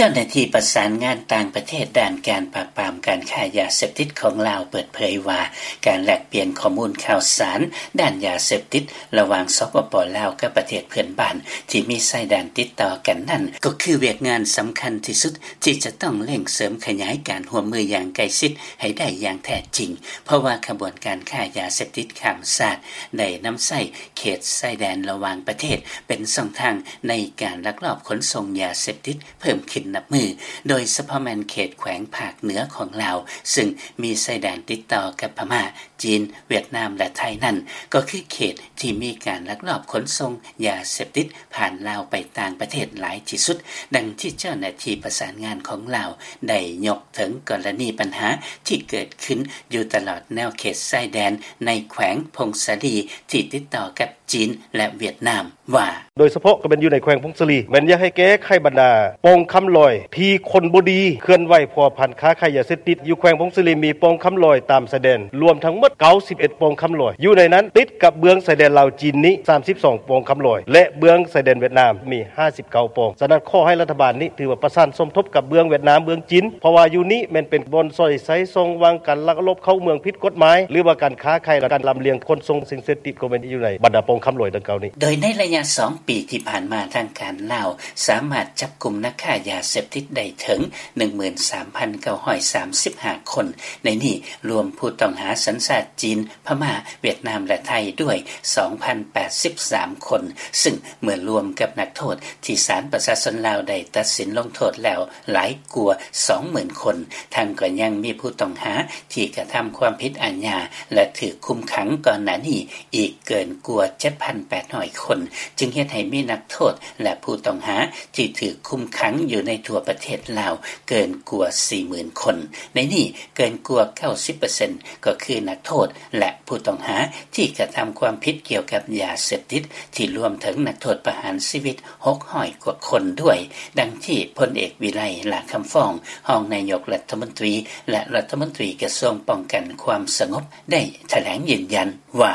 ເຈົ້າໜ້າທີ່ປະສານງານຕ່າງປະເທດ ດ້ານການປາບປາມການຄ້າຢາເສບຕິດຂອງລາວ ເປີດເຜີຍວ່າ ການແລກປ່ຽນຂໍ້ມູນຂ່າວສານ ດ້ານຢາເສບຕິດ ລະຫວ່າງ ສປປ ລາວ ກັບປະເທດເພື່ອນບ້ານ ທີ່ມີຊາຍແດນຕິດຕໍ່ກັນນັ້ນ ກໍຄືວຽກງານສຳຄັນທີ່ສຸດ ທີ່ຈະຕ້ອງເລັ່ງເສີມຂະຫຍາຍການຮ່ວມມືຢ່າງໃກ້ຊິດ ໃຫ້ໄດ້ຢ່າງແທ້ຈິງ ເພາະວ່າຂະບວນການຄ້າຢາເສບຕິດຂ້າມຊາດ ໄດ້ນຳໃຊ້ເຂດຊາຍແດນລະຫວ່າງປະເທດ ເປັນຊ່ອງທາງໃນການລັກລອບຂົນສົ່ງຢາເສບຕິດ ເພີ່ມຂຶ້ນນັບມື້, ໂດຍສະເພາະແມ່ນເຂດແຂວງພາກເໜືອຂອງລາວ ຊຶ່ງມີຊາຍແດນຕິດຕໍ່ກັບພະມ້າ, ຈີນ, ຫວຽດນາມ ແລະ ໄທນັ້ນ ກໍຄືເຂດທີ່ມີການລັກລອບຂົນສົ່ງຢາເສບຕິດຜ່ານລາວໄປຕ່າງປະເທດຫຼາຍທີ່ສຸດ, ດັ່ງທີ່ເຈົ້າໜ້າທີ່ປະສານງານຂອງລາວໄດ້ຍົກເຖິງກໍລະນີບັນຫາທີ່ເກີດຂຶ້ນຢູ່ຕະຫຼອດແນວເຂດຊາຍແດນໃນແຂວງຜົ້ງສາລີ ທີ່ຕິດຕໍ່ກັບຈີນ ແລະ ຫວຽດນາມ ວ່າ ໂດຍສະເພາະກໍແມ່ນຢູ່ໃນແຂວງຜົ້ງສາລີ ແມ່ນຢາກໃຫ້ແກ້ໄຂບັນດາປ່ອງຄຳລອຍ ທີ່ຄົນບໍ່ດີເຄື່ອນໄຫວພົວພັນຄ້າຂາຍຢາເສບຕິດ. ຢູ່ແຂວງຜົ້ງສາລີມີປ່ອງຄຳລອຍຕາມຊາຍແດນ ລວມທັງໝົດເກົ້າສິບເອັດປ່ອງຄຳລອຍ, ຢູ່ໃນນັ້ນຕິດກັບເບື້ອງຊາຍແດນລາວຈີນນີ້ສາມສິບສອງປ່ອງຄຳລອຍ ແລະ ເບື້ອງຊາຍແດນຫວຽດນາມມີຫ້າສິບເກົ້າປ່ອງ. ສະນັ້ນ ຂໍໃຫ້ລັດຖະບານນີ້ຖືວ່າປະສານສົມທົບກັບເບື້ອງຫວຽດນາມ ເບື້ອງຈີນ ເພາະວ່າຢູ່ນີ້ແມ່ນເປັນບ່ອນສອດໃຊ້ຊ່ອງວ່າງການລັກລອບເຂົ້າເມືອງຜິດກົດໝາຍ ຫຼືວ່າການຄ້າຂາຍ ແລະ ການລຳລຽງຂົນສົ່ງສິ່ງເສບຕິດ ກໍແມ່ນຢູ່ໃນບັນດາປ່ອງຄຳລອຍດັ່ງກ່າວນີ້. ໂດຍໃນໄລຍະສອງປີທີ່ຜ່ານມາ ທາງການລາວສາມາດຈັບກຸມນັກຄ້າຢາເສບຕິດໄດ້ເຖິງ ໜຶ່ງໝື່ນສາມພັນເກົ້າຮ້ອຍສາມສິບຫ້າຄົນ, ໃນນີ້ລວມຜູ້ຕ້ອງຫາສັນຊາດຈີນ, ພະມ້າ, ຫວຽດນາມ ແລະ ໄທດ້ວຍ ສອງພັນແປດສິບສາມຄົນ, ຊຶ່ງເມື່ອລວມກັບນັກໂທດທີ່ສານປະຊາຊົນລາວໄດ້ຕັດສິນລົງໂທດແລ້ວຫຼາຍກວ່າສອງໝື່ນຄົນ, ທັງກໍຍັງມີຜູ້ຕ້ອງຫາທີ່ກະທຳຄວາມຜິດອາຍາ ແລະ ຖືກຄຸມຂັງກ່ອນໜ້ານີ້ອີກເກີນກວ່າເຈັດພັນແປດຮ້ອຍຄົນ, ຈຶ່ງເຮັດໃຫ້ມີນັກໂທດ ແລະ ຜູ້ຕ້ອງຫາທີ່ຖືກຄຸມຂັງຢູ່ໃນທົ່ວປະເທດລາວເກີນກວ່າສີ່ໝື່ນຄົນ. ໃນນີ້ເກີນກວ່າເກົ້າສິບເປີເຊັນ ກໍຄືນັກໂທດ ແລະ ຜູ້ຕ້ອງຫາທີ່ກະທຳຄວາມຜິດກ່ຽວກັບຢາເສບຕິດ ທີ່ລວມເຖິງນັກໂທດປະຫານຊີວິດຫົກຮ້ອຍກວ່າຄົນດ້ວຍ, ດັ່ງທີ່ພົນເອກ ວິໄລ ຫຼ້າຄຳຟອງ ຮອງນາຍົກລັດຖະມົນຕີ ແລະ ລັດຖະມົນຕີກະຊວງປ້ອງກັນຄວາມສະຫງົບ ໄດ້ຖະແຫຼງຢືນຢັນວ່າ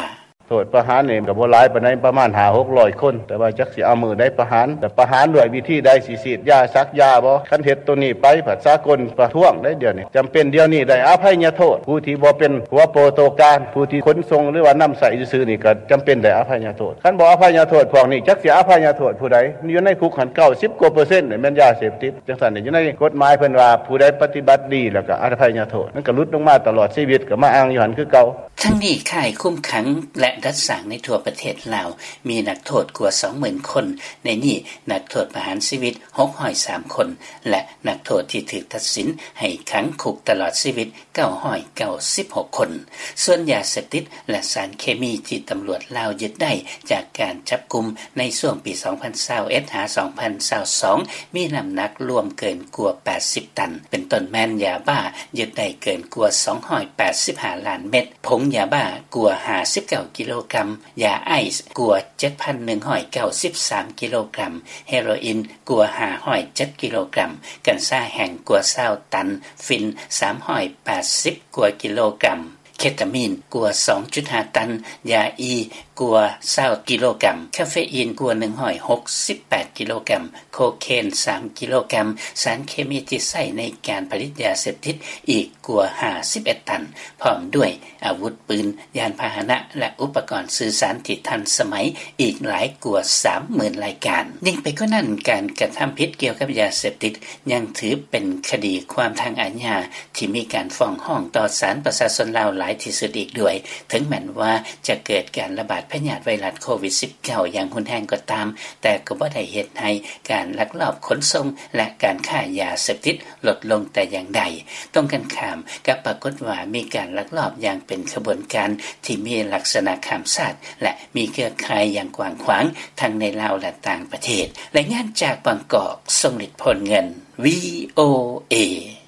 ໂທດປະຫານນີ້ກໍບໍ່ຫຼາຍປານໃດ ປະມານຫ້າຫົກຮ້ອຍຄົນ, ແຕ່ວ່າຈັກຊິເອົາມື້ໃດປະຫານ ແລະ ປະຫານດ້ວຍວິທີໃດ, ຊິສີດຢາ ສັກຢາບໍ່? ຄັນເຮັດໂຕນີ້ໄປ ພັດສາກົນປະທ້ວງໄດ໋ດຽວນີ້. ຈຳເປັນດຽວນີ້ໄດ້ອະໄພຍະໂທດ, ຜູ້ທີ່ບໍ່ເປັນຫົວໂປໂຕການ, ຜູ້ທີ່ຂົນສົ່ງ ຫຼືວ່ານຳໃຊ້ຊື່ໆນີ້ ກໍຈຳເປັນໄດ້ອະໄພຍະໂທດ. ຄັນບໍ່ອະໄພຍະໂທດພວກນີ້ ຈັກຊິອະໄພຍະໂທດຜູ້ໃດ? ຢູ່ໃນຄຸກຫັ້ນເກົ້າສິບກວ່າເປີເຊັນນີ້ແມ່ນຢາເສບຕິດ. ຈັ່ງຊັ້ນນີ້ ຢູ່ໃນກົດໝາຍເພິ່ນວ່າ ຜູ້ໃດປະຕິບັດດີແລ້ວກໍອະໄພຍະໂທດ, ມັນກໍຫຼຸດລົງມາຕະຫຼອດຊີວິດ ກໍມາອ້າງຢູ່ຫັ້ນຄືເກົ່າ. ທັງນີ້ ຄ້າຍຄຸມຂັງ ແລະ ດັດສ້າງໃນທົ່ວປະເທດລາວ ມີນັກໂທດກວ່າສອງໝື່ນຄົນ, ໃນນີ້ນັກໂທດປະຫານຊີວິດຫົກຮ້ອຍສາມຄົນ ແລະ ນັກໂທດທີ່ຖືກຕັດສິນໃຫ້ຂັງຄຸກຕະຫຼອດຊີວິດເກົ້າຮ້ອຍເກົ້າສິບຫົກຄົນ. ສ່ວນຢາເສບຕິດ ແລະ ສານເຄມີທີ່ຕຳຫຼວດລາວຍຶດໄດ້ຈາກການຈັບກຸມໃນຊ່ວງປີສອງພັນຊາວເອັດ ຫາ ສອງພັນຊາວສອງ ມີນ້ຳໜັກລວມເກີນກວ່າແປດສິບຕັນ, ເປັນຕົ້ນແມ່ນຢາບ້າຍຶດໄດ້ເກີນກວ່າສອງຮ້ອຍແປດສິບຫ້າລ້ານເມັດ, ຜົງຢາບ້າກວ່າຫ້າສິບເກົ້າກິໂລກຣາມ, ຢາໄອສ໌ກວ່າເຈັດພັນໜຶ່ງຮ້ອຍເກົ້າສິບສາມກິໂລກຣາມ, ເຮໂຣອິນກວ່າຫ້າຮ້ອຍເຈັດກິໂລກຣາມ, ກັນຊາແຫ້ງກວ່າຊາວຕັນ, ຝິ່ນສາມຮ້ອຍແປດສິບກວ່າກິໂລກຣາມ, ເຄຕາມີນກວ່າສອງຈຸດຫ້າຕັນ, ຢາອີກວ່າຊາວກິໂລກຣາມ, ຄາເຟອີນກວ່າໜຶ່ງຮ້ອຍຫົກສິບແປດກິໂລກຣາມ, ໂຄເຄນສາມກິໂລກຣາມ, ສານເຄມີທີ່ໃຊ້ໃນການຜະລິດຢາເສບຕິດອີກກວ່າຫ້າສິບເອັດຕັນ, ພ້ອມດ້ວຍອາວຸດປືນ, ຍານພາຫະນະ ແລະ ອຸປະກອນສື່ສານທີ່ທັນສະໄໝອີກຫຼາຍກວ່າສາມໝື່ນລາຍການ. ຍິ່ງໄປກວ່ານັ້ນ, ການກະທຳຜິດກ່ຽວກັບຢາເສບຕິດຍັງຖືເປັນຄະດີຄວາມທາງອາຍາ ທີ່ມີການຟ້ອງຮ້ອງຕໍ່ສານປະຊາຊົນລາວຫຼາຍທີ່ສຸດອີກດ້ວຍ, ເຖິງແມ່ນວ່າຈະເກີດການລະບາດພະຍາດໄວຣັສໂຄວິດສິບເກົ້າຢ່າງຮຸນແຮງກໍຕາມ, ແຕ່ກໍບໍ່ໄດ້ເຮັດໃຫ້ການລັກລອບຂົນສົ່ງ ແລະ ການຄ້າຢາເສບຕິດລົດລົງແຕ່ຢ່າງໃດ. ຕົງກັນຂ້າມ, ກັບປາກົດວ່າມີການລັກລອບຢ່າງເປັນຂະບວນການທີ່ມີລັກສະນະຂ້າມຊາດ ແລະ ມີເຄືອຂ່າຍຢ່າງກວ້າງຂວາງ ທັງໃນລາວ ແລະ ຕ່າງປະເທດ. ລາຍງານຈາກບາງກອກ, ຊົງລິດ ໂພນເງິນ, ວີໂອເອ.